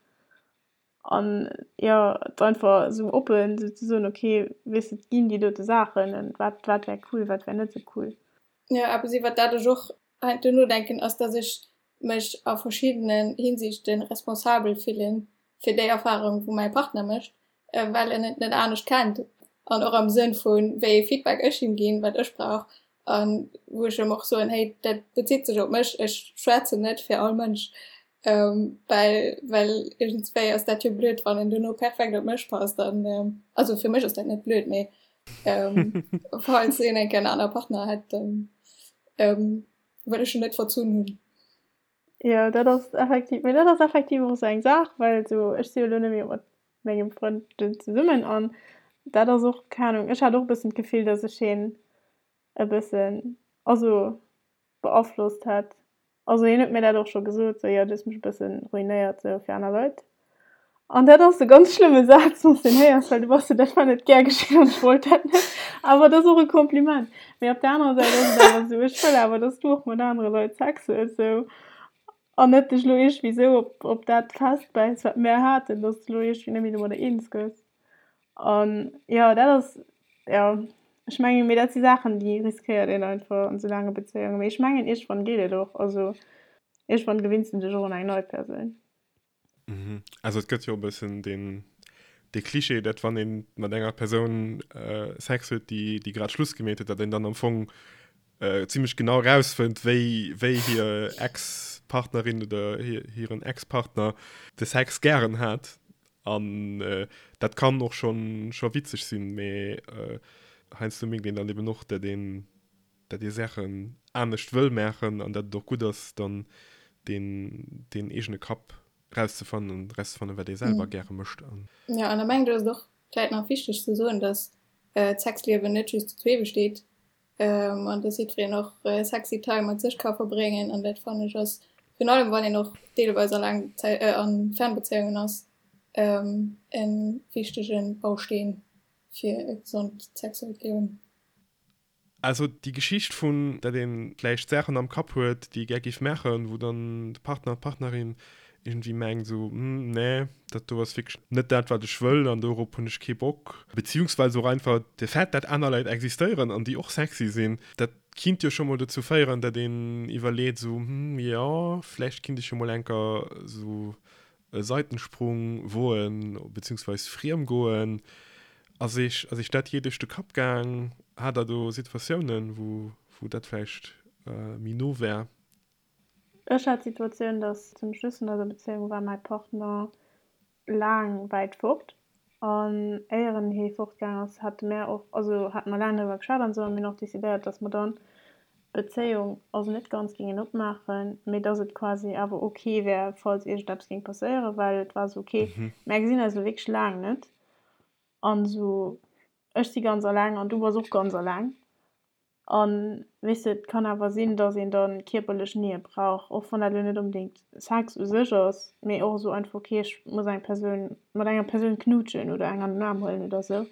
An jo, et einfach esou oppen esou ze soen, ok, weess de, et ginn déi dote Saachen, an wat, wat wär cool, wat wär net esou cool. Jo, eppes iwwert dat ech och heiansdo nodenken, ass, dass ech mech a verschiddenen Hinsichte responsabel fille fir déi Erfarung, wou mäi Partner mécht, well en et net anescht kennt an och am Sënn vu wéi ee Feedback ech him ginn, wat ech brauch an wou ech em och soen, hey, dat bezitt sech op mech, ech schwätzen net fir all Mënsch, well well iergendswéi ass dat jo blöd, wann en duerno perfekt op mech passt an also fir mech ass dat net blöd, mee falls een eng Kéier en anere Partner hätt, dann wëll ech en net verzunn hunn. Jo, dat ass effektiv, mee dat ass effektiv och esou eng Saach, well esou ech si jo elo net méi mat mengem Frënd zesummen an dat ass och, keng Ahnung, ech hat och e bëssen d'Gefill, dass ech hien e bëssen, also beaflosst hätt. Also hien huet mir dat och scho gesot, sou, jo, du hues mech e bëssen ruinéiert sou fir aner Leit. An dat ass e ganz schlëmme Saz, wann s de en héiers, well du bass sou, dat war net gär geschinn an ech wollt dat net. Awer et ass och e Kompliment. Mee op der anerer Säit ass et awer sou, ech wëll awer, dass du och mat anere Leit Sex hues sou an net dech elo iergendwéi sou op op dat festbäiss, wat mär haten, dass de elo iergendwéi net méi domadder eens gëss. An jo, dat ass, jo, ech mengen, mee dat si Saachen, déi riskéiert een einfach an esou laange Bezéiungen. Mee ech mengen, iergendwann geet et och. Also iergendwann gewinns de dech och un eng nei Persoun. Also et gëtt jo e bëssen deen, dee Cliché, dat wann ee mat enger Persoun Sex huet, déi, déi grad Schluss gemeet huet, datt een dann am Fong zimmlech genau erausfënnt, wéi, wéi hir Ex-Partnerin oder hiren Ex-Partner de Sex gären hat. An dat kann och schonn scho witzeg sinn, mee heiansdo mierkt een dann eben och, dat een dat ee Saachen anescht wëll maachen an dat et och gutt ass, dann deen deen eegene Kapp rauszefannen an rauszefannen, wat ee selwer gäre mécht. An. Jo, an da mengen ech, ass et och vläit nach wichteg ze soen, dass d'Sexliewen net just zu zwee besteet, an dass jiddwereen och sexy Time mat sech ka verbréngen an dat fannen ech ass virun allem wann een och deelweis a laang Zäit a Fernbezéiungen ass e wichtege Bausteen fir e gesond sexuellt Liewen. Also déi Geschicht vun, dat ee vläicht Saachen am Kapp huet, déi ee gär géif maachen, wou dann de Partner, d'Partnerin iergendwéi mengt esou, Hm, nee, dat do ass wierklech net dat, wat ech wëll an dorop hunn ech kee Bock. Beziehungsweise och einfach de Fait, dat aner Leit existéieren an déi och sexy sinn, dat kinnt jo scho mol dozou féieren, dat een iwwerleet esou, Hm, jo, vläicht kinnt ech jo mol enker esou e Seitensprung woen, beziehungsweise friem goen. Ass Iech, ass Iech dat jee duerch de Kapp gaang? Hat Der do Situatiounen, wou, wou dat vläicht méi no war? Ech hat d'Situatioun, dass zum Schluss vun eiser Bezéiung war mäi Partner laang wäit fort an éier en hee fortgaang ass, hate mär och, also hate mer laang driwwer geschwat an esou a mir hunn och decidéiert, dass mer dann d'Bezéiung also net ganz géingen opmaachen, mee dass et quasi awer ok wär, falls iergendeppes géing passéieren, well et war esou, ok, mär gesinn eis elo wierklech laang net an esou, ech si ganz alleng an du bass och ganz alleng. An, weess de, et kann awer sinn, dass een da kierperlech Nähe brauch, och wann dat elo net onbedéngt Sex u sech ass, mee och esou einfach, okay, ech muss eng Persoun, mat enger Persoun knuutschen oder eng an den Aarm huelen oder esou.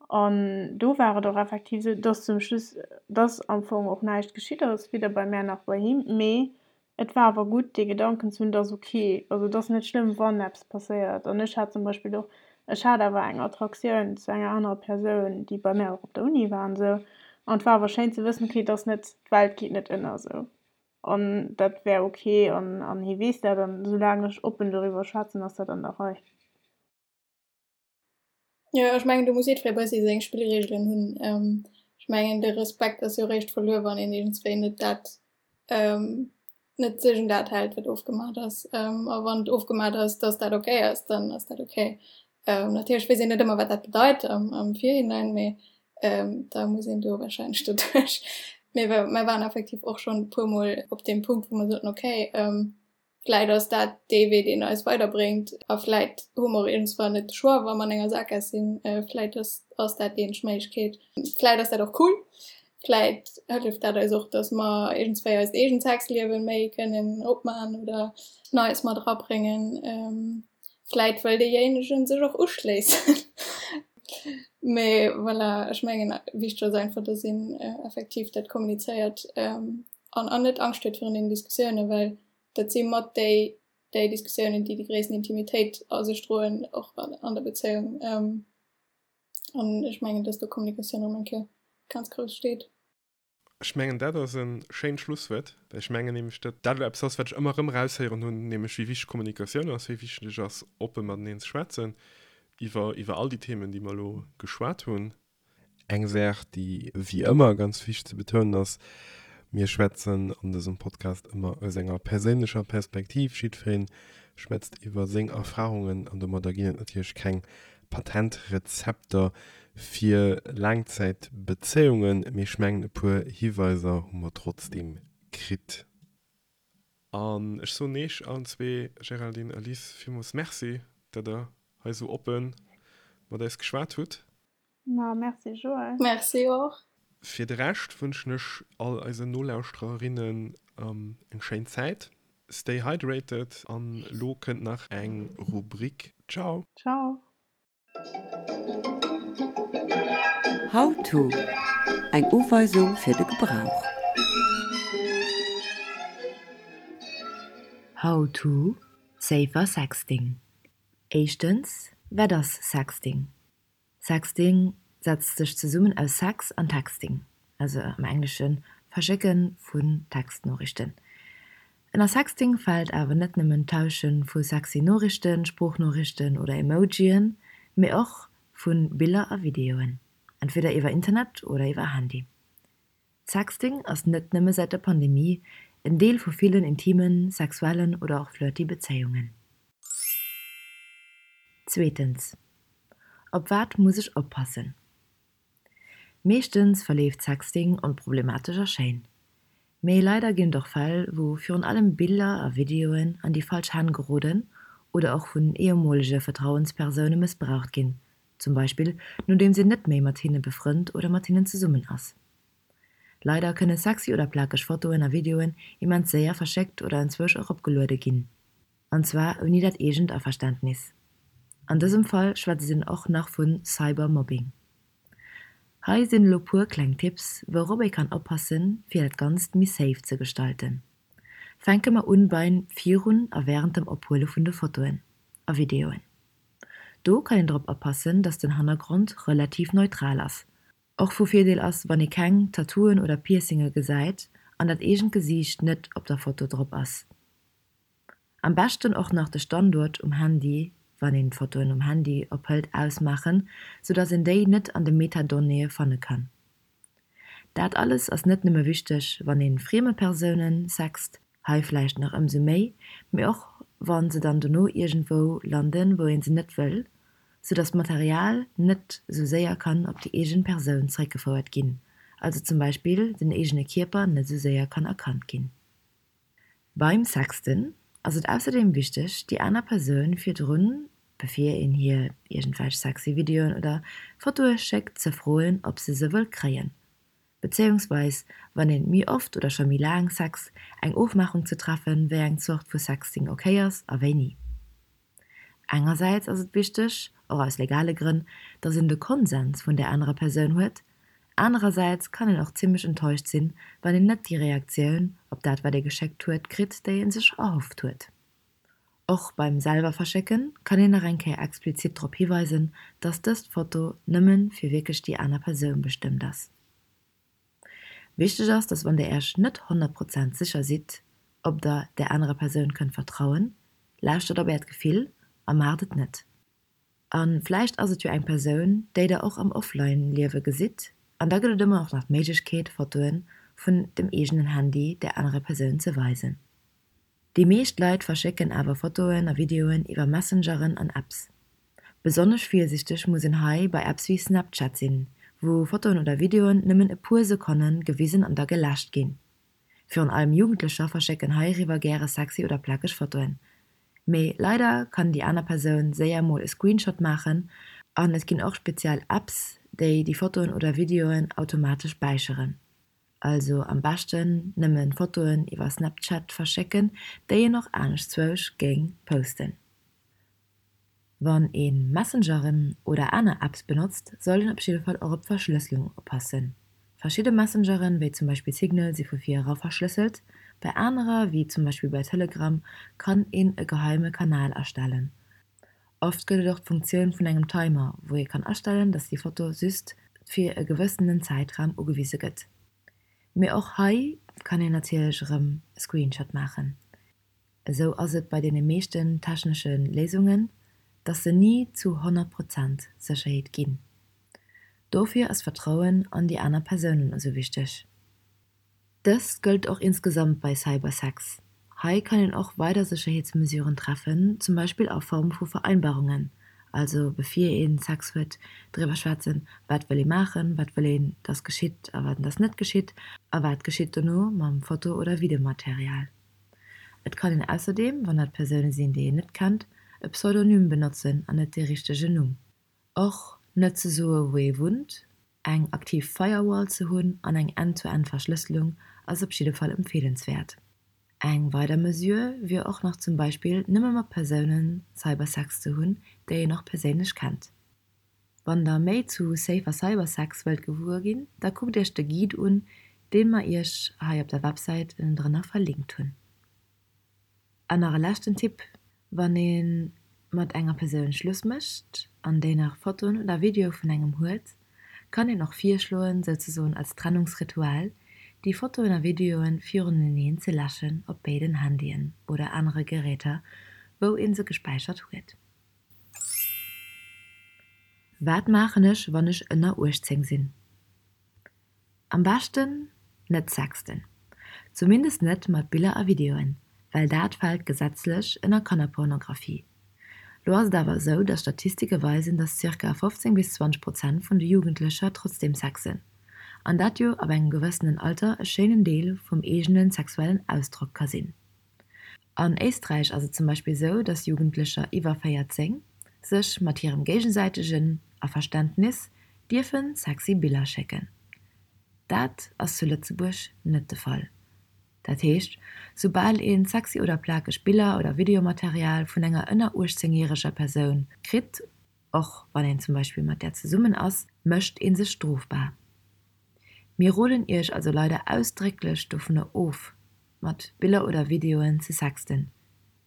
An do war et och effektiv esou, dass zum Schluss, dass am Fong och näischt geschitt ass, weder bei mär nach bei him, mee Et war awer gutt, dee Gedanken ze hunn, et ass ok, also et ass net schlëmm, wann eppes passéiert. An ech hat zum Beispill och, ech hat awer eng Attraktioun zu enger anerer Persoun, déi bei mär och op der Uni war an esou. An et war awer schéin ze wëssen, ok, et ass net, d'Welt geet net ënner esou an dat wär ok an an hie weess dat an soulaang ech oppen doriwwer schwätzen, ass dat an der Rei. Jo, ech mengen do muss jiddweree bëssi seng Spillreegelen hunn. Ech mengen de Respekt ass jo eréischt verluer, wann een iergendswéi net dat, net sech un dat hält, wat ofgemaach ass. A wann et ofgemaach ass, datt dat ok ass, dann ass dat ok. Natierlech weess een net ëmmer, wat dat bedeit am am Virhinein, mee da muss een do warscheinlech doduerch. Mee mer waren effektiv och schonn e puermol op deem Punkt, wou mer soten, ok, Vläit ass dat dee Wee, deen eis weiderbréngt. A vläit hu mer och iergendswann net de Choix, wa mer an enger Sakgaass sinn. Vläit ass, ass dat déi eenzeg Méiglechkeet. Vläit ass dat och cool. Vläit hëlleft dat eis och, dass mer iergendswéi eist eegent Sexliewe méi kënnen opman oder Neies mat erabréngen. Vläit wëll deejéinegen sech och uschléissen. Mee voilà, ech mengen, wichteg ass einfach, dass een effektiv dat kommunizéiert. An an net Angscht huet virun deenen Diskussiounen, well dat si mat déi déi Diskussiounen, déi déi gréissten Intimitéit a sech droen, och an der Bezéiung. An ech mengen, dass do Kommunikatioun erëm eng Kéier ganz grouss steet. Ech mengen, dat ass e schéint Schlusswuert, well ech mengen nämlech, datt dat elo eppes ass, wat ech ëmmer erëm eraushéieren hunn, nämlech wéi wichteg Kommunikatioun ass, wéi wichteg et ass, oppe mateneen ze schwätzen iwwer iwwer all déi Themen, déi mer elo geschwat hunn. Eng Saach, déi wéi ëmmer ganz wichteg ze betounen ass, Mir schwätzen an dësem Podcast ëmmer aus enger perséinlecher Perspektiv. Jiddweree schwätzt iwwer seng Erfarungen an domadder ginn et natierlech keng Patentrezepter fir Laangzäitbezéiungen, mee ech mengen e puer Hiweiser hu mer trotzdeem kritt. An ech soen Eech allen zwee, Géraldine a Liz, villmools Merci, dat der hei esou oppe mat eis geschwat hutt. Ma merci Joël. Merci och. Fir de Rescht wënschen ech all eisen Nolauschtererinnen eng schéin Zäit. Stay hydrated an lo kënnt nach eng Rubrik. Ciao. Ciao. How to, Eng Uweisung fir de Gebrauch. How to, Safer Sexting Éischtens, Wat ass Sexting? Sexting setzt sech zesummen aus Sex an Texting, also am Englesche Verschécke vun Textnoriichten. Ënner Sexting fält awer net nëmmen d'Tausche vu sexy Noriichten, Sproochnoriichten oder Emojien, mee och vu Biller a Videoen, entweder iwwer Internet oder iwwer Handy. Sexting ass net nëmme säit der Pandemie en Deel vu villen intimen, sexuellen oder och flirty Bezéiungen. Zweetens, Op wat muss ech oppassen? Meeschtens verleeft Sexting onproblematesch a schéin. Mee leider ginn et och Fäll, wou virun allem Biller a Videoen an déi falsch Hänn geroden oder och vun ehemolege Vertrauenspersoune mëssbraucht ginn, zum Beispill nodeems een net méi mat hinne befrënnt oder mat hinnen zesummen ass. Leider kënne sexy oder plakeg Fotoen a Videoen immens séier verschéckt oder enzwousch eropgeluede ginn. An zwar ouni dat eegent Averständnis. An dësem Fall schwätzt een och nach vu Cybermobbing. Hei sinn elo puer kleng Tipps, wourop ee kann oppassen, fir dat Ganzt méi safe ze gestalten. Fänke mer un beim virun a wärend dem Ophuele vun de Fotoen a Videoen. Do kann een drop oppassen, dass den Hannergrond relativ neutral ass. Och vu Virdeel ass, wann ee keng Tattooen oder Piercinge gesäit an dat eegent Gesiicht net op der Foto drop ass. Am beschten och nach de Standuert um Handy, wann een d'Fotoen um Handy ophëlt, ausmaachen, sou dass een déi net an de Metadonnéeë fanne kann. Dat alles ass net nëmme wichteg, wann een frieme Persounen sext, hei vläicht nach ëmsou méi, mee och wann se dann dono iergendwou landen, wou een se net wëll, sou dass d'Material net sou séier kann op déi eegen Persoun zeréckgefouert ginn, also zum Beispill den eegene Kierper net sou séier kann erkannt ginn. Beim Sexten ass et ausserdeem wichteg, déi aner Persoun virdrun, bevir een hir iergendwelch sexy Videoen oder Fotoe schéckt, ze froen, ob se se wëll kréien. Bezéiungsweis wann een méi oft oder scho méi laang sext, eng Ofmaachung ze treffen, wéi eng Zort vu Sexting ok ass a wéini. Engersäits ass et wichteg, och aus legale Grënn, dass een de Konsens vun där anerer Persoun huet, anerersäits kann een och zimmlech enttäuscht sinn, wann een net déi Reaktioun op dat wat ee geschéckt huet kritt, déi ee sech erhofft huet. Och beim selwer verschécken kann een nach eng Kéier explizit drop hiweisen, dass dëst Foto nëmmen fir wierklech déi aner Persoun bestëmmt ass. Wichteg ass, dass wann der Iech net 100 Prozent sécher sidd, ob der där anerer Persoun kënnt vertrauen, lauschtert op äert Gefill a maacht et net. A vläicht ass et jo eng Persoun, déi der och am Offline-Liewe gesitt an da gëtt et ëmmer och nach d'Méiglechkeet, Fotoe vun dem eegenen Handy där anerer Persoun ze weisen. Déi meescht Leit verschécken awer Fotoen a Videoen iwwer Messengeren an Apps. Besonnesch virsiichteg muss een hei bei Apps wéi Snapchat sinn, wou Fotoen oder Videoen nëmmen e puer Sekonne gewisen an da geläscht ginn. Virun allem Jugendlecher verschécken heiriwwer gäre sexy oder plakeg Fotoen. Mee leider kann déi aner Persoun séier mol e Screenshot maachen an et ginn och speziell Apps, déi déi Fotoen oder Videoen automatesch späicheren. Also am beschten nëmmen Fotoen iwwer Snapchat verschécken, déi een och aneschtzwousch géing posten. Wann een Messengeren oder aner Apps benotzt, sollt een op jidde Fall och op d'Verschlësselung oppassen. Verschidde Messengeren, wéi zum Beispill Signal, si vu vir era verschlësselt, bei anerer, wéi zum Beispill bei Telegram, kann een e geheime Kanal erstellen. Oft gëtt et och d'Funktioun vun engem Timer, wou ee kann astellen, dass déi Foto just fir e gewëssenen Zäitraum ugewise gëtt. Mee och hei kann een natierlech erëm e Screenshot maachen. Esou ass et bei deene meeschten technesche Léisungen, dass se ni zu 100 Prozent Sécherheet ginn. Dofir ass d'Vertrauen an déi aner Persounen esou wichteg. Dëst gëllt och insgesamt bei Cybersex. Hei kann een och weider Sécherheetsmesuren treffen, zum Beispill a Form vu Vereinbarungen, also bevir ee Sex huet, driwwer schwätzen, wat wëll ee maachen, wat wëll een, dass geschitt a wat dass net geschitt a wat geschitt dono mam Foto oder Videomaterial. Et kann een ausserdeem, wann dat Persoune sinn, déi een net kennt, e Pseudonym benotzen an net dee richtegen Numm. Och net ze soe wou ee wunnt, eng aktiv Firewall ze hunn an eng End-to-End-Verschlësselung ass op jidde Fall empfeelenswäert. Eng weider Mesure wier och nach zum Beispill nëmme mat Persounen Cybersex ze hunn, déi een och perséinlech kennt. Wann der méi zu Safer Cybersex wëllt gewuer ginn, da kuckt iech de Guide un, deen mer iech hei op der Websäit ënnendrënner verlinkt hunn. An nach e leschten Tipp, Wann ee mat enger Persoun Schluss mécht an déi nach Fotoen oder Videoe vun engem huet, kann een och virschloen, souzesoen als Trennungsritual, déi Fotoen a Videoen viruneneen ze läschen op béiden Handyen oder anere Geräter, wou ee se gespäichert huet. Wat maachen ech, wann ech ënner 18 sinn? Am beschten net sexten. Zumindest net mat Biller a Videoen, well dat fält gesetzlech ënner Kannerpornografie. Lo ass et awer esou, dass Statistike weisen, dass zirka 15 bis 20 Prozent vun de Jugendlecher trotzdeem sexen. An dat jo ab engem gewëssenen Alter e schéinen Deel vum eegene sexuellen Ausdrock ka sinn. An Éisträich ass et zum Beispill sou, dass Jugendlecher iwwer 14 sech mat hirem géigesäitegen Averständnis dierfe sexy Biller schécken. Dat ass zu Lëtzebuerg net de Fall. Dat heescht, soubal een sexy oder plakeg Biller oder Videomaterial vun enger ënner 18 järeger Persoun kritt, och wann een zum Beispill mat där zesummen ass, mécht ee sech strofbar. Mir roden iech also leider ausdrécklech dovunner of, mat Biller oder Videoen ze sexten.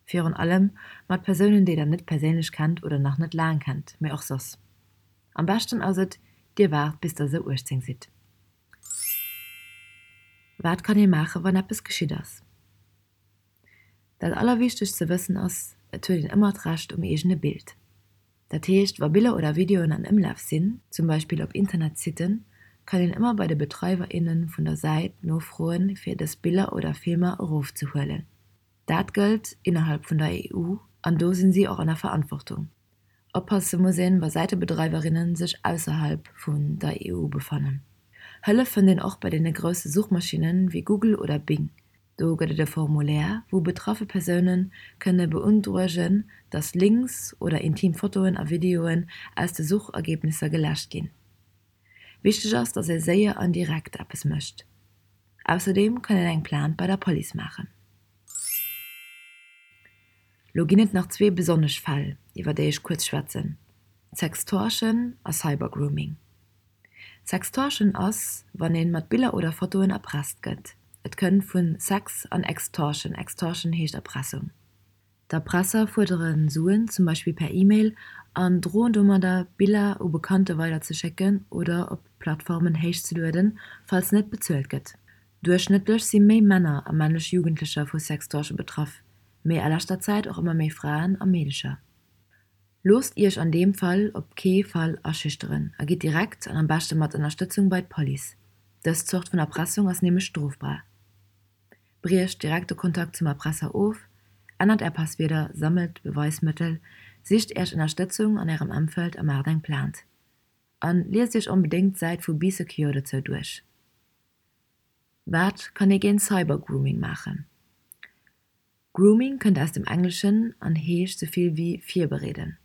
Virun allem mat Persounen, déi der net perséinlech kennt oder nach net laang kennt, mee och soss. Am beschten ass et, dir waart bis der sou 18 sidd. Wat kann ee maachen, wann eppes geschitt ass? Dat allerwichtegst ze wëssen ass, et huet een ëmmer d'Recht um eegene Bild. Dat heescht, wa Biller oder Videoen an Ëmlaf sinn, zum Beispill op Internetsitten, kann een ëmmer bei de Betreiwer, innen vun der Säit nofroen, fir dës Biller oder Filmer erofzehuelen. Dat gëllt innerhalb vun der EU an do sinn si och an der Verantwortung. Oppasse muss een, wa Säitebedreiwerinnen sech ausserhalb vun der EU befannen. Hëllef fënnt een och bei deene grousse Suchmaschinnen wéi Google oder Bing. Do gëtt et e Formulaire, wou betraffe Persoune kënne beundruegen, datt Links oder intim Fotoen a Videoen aus de Suchergebnisser geläscht ginn. Wichteg ass, dass ee séier an direkt eppes mécht. Ausserdeem kann een eng Plainte bei der Police maachen. Lo ginn et nach zwee besonnesch Fäll, iwwer déi ech kuerz schwätzen, Sextortion a Cybergrooming. Sextortion ass, wann een mat Biller oder Fotoen erpresst gëtt. Et kënnt vun Sex an Extortion, Extortion heescht Erpressung. D'Erpresser fuerdere Suen, zum Beispill per E-Mail, an droen domadder, Biller u Bekannte weiderzeschécken oder op Plattformen héichzelueden, falls net bezuelt gëtt. Duerchschnëttlech si méi Männer a männlech Jugendlecher vu Sextortion betraff, mee a leschter Zäit och ëmmer méi Fraen a Meedecher. Loosst Iech an deem Fall op kee Fall aschüchteren a gitt direkt an am beschte mat Ënnerstëtzung bei d'Police. Dës Zort vun Erpressung ass nämlech strofbar. Briecht direkt de Kontakt zum Erpresser of, ännert Är Passwierder, sammelt Beweismëttel, sicht Iech Ënnerstëtzung an Ärem Emfeld a maacht eng Plainte. An liest Iech onbedéngt d'Säit vu Bee Secure dozou duerch. Wat kann ee géint Cybergrooming maachen? Grooming kënnt aus dem Engleschen an heescht sou vill wéi virbereeden.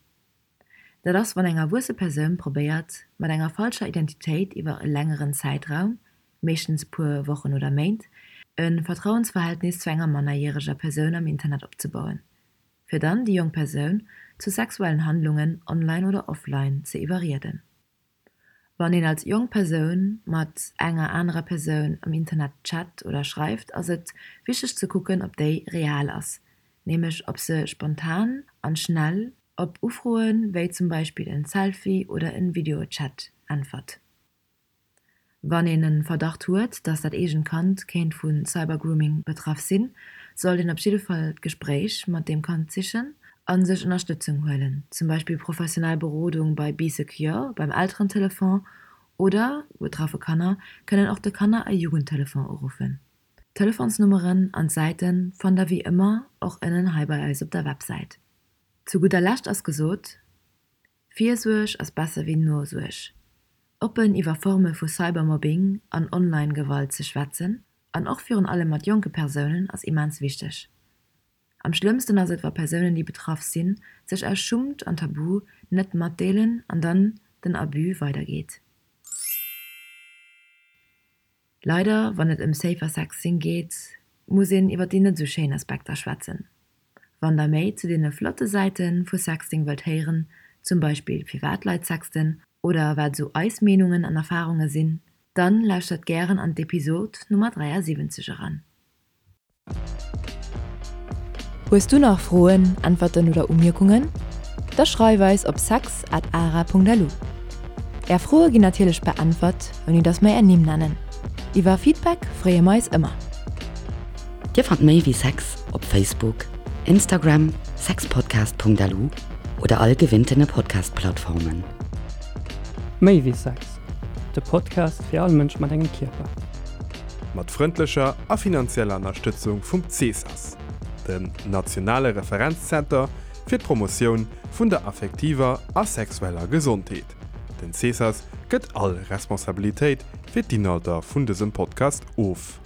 Dat ass, wann eng erwuesse Persoun probéiert, mat enger falscher Identitéit iwwer e längeren Zäitraum, meeschtens e puer Wochen oder Méint, e Vertrauensverhältnis zu enger mannerjäreger Persoun am Internet opzebauen, fir dann déi jonk Persoun zu sexuellen Handlungen online oder offline ze iwwerrieden. Wann een als jonk Persoun mat enger anerer Persoun am Internet chat oder schreift, ass et wichteg ze kucken, ob déi real ass, nämlech ob se spontan an schnell op Ufroen, wéi zum Beispill en Selfie oder en Videochat, äntwert. Wann een en Verdacht huet, dass dat eegent Kand kéint vu Cybergrooming betraff sinn, sollt een op jidde Fall d'Gespréich mat deem Kand sichen a sech Ënnerstëtzung huelen, zum Beispill professionell Berodung bei Bee Secure, beim Elterentelefon oder betraffe Kanner kënnen och de Kanner a Jugendtelefon uruffen. D'Telefonsnummeren an d'Säite fannt der wéi ëmmer och ënnen hei bei eis op der Websäit. Zu gudder Lescht ass gesot, Virsuerg ass besser wéi Nosuerg. Oppen iwwer Forme vu Cybermobbing an Online-Gewalt ze schwätzen, an och virun allem mat jonke Persounen, ass immens wichteg. Am schlëmmsten ass et wa Persounen déi betraff sinn, sech aus Schummt an Tabu net matdeelen an dann den Abus weidergeet. Leider, wann et ëm Safer Sexting geet, muss een iwwer déi net esou schéin Aspekter schwätzen. Wann der méi zu deene flotte Säite vu Sexting wëllt héieren, zum Beispill firwat Leit sexten oder wat esou eis Meenungen an Erfarunge sinn, dann lauschtert gären an d'Episod Nummer 73 eran. Hues du nach Froen, Äntwerten oder Umierkungen? Da schreif eis op sex at ara.lu. Är Froe ginn natierlech beäntwert, ouni dass mer är Nimm nennen. Iwwer Feedback freeë mer eis ëmmer. Dir fannt méi wéi Sex op Facebook, Instagram, sexpodcast.lu oder all gewinntene Podcast-Plattformen. Méi wéi Sex, de Podcast fir all Mënsch mat engem Kierper. Mat frëndlecher a finanzieller Ënnerstëtzung vum CESAS, dem nationale Referenzzenter fir d'Promotioun vun der affektiver a sexueller Gesondheet. Den CESAS gëtt all Responsabilitéit fir d'Inhalter vun dësem Podcast of.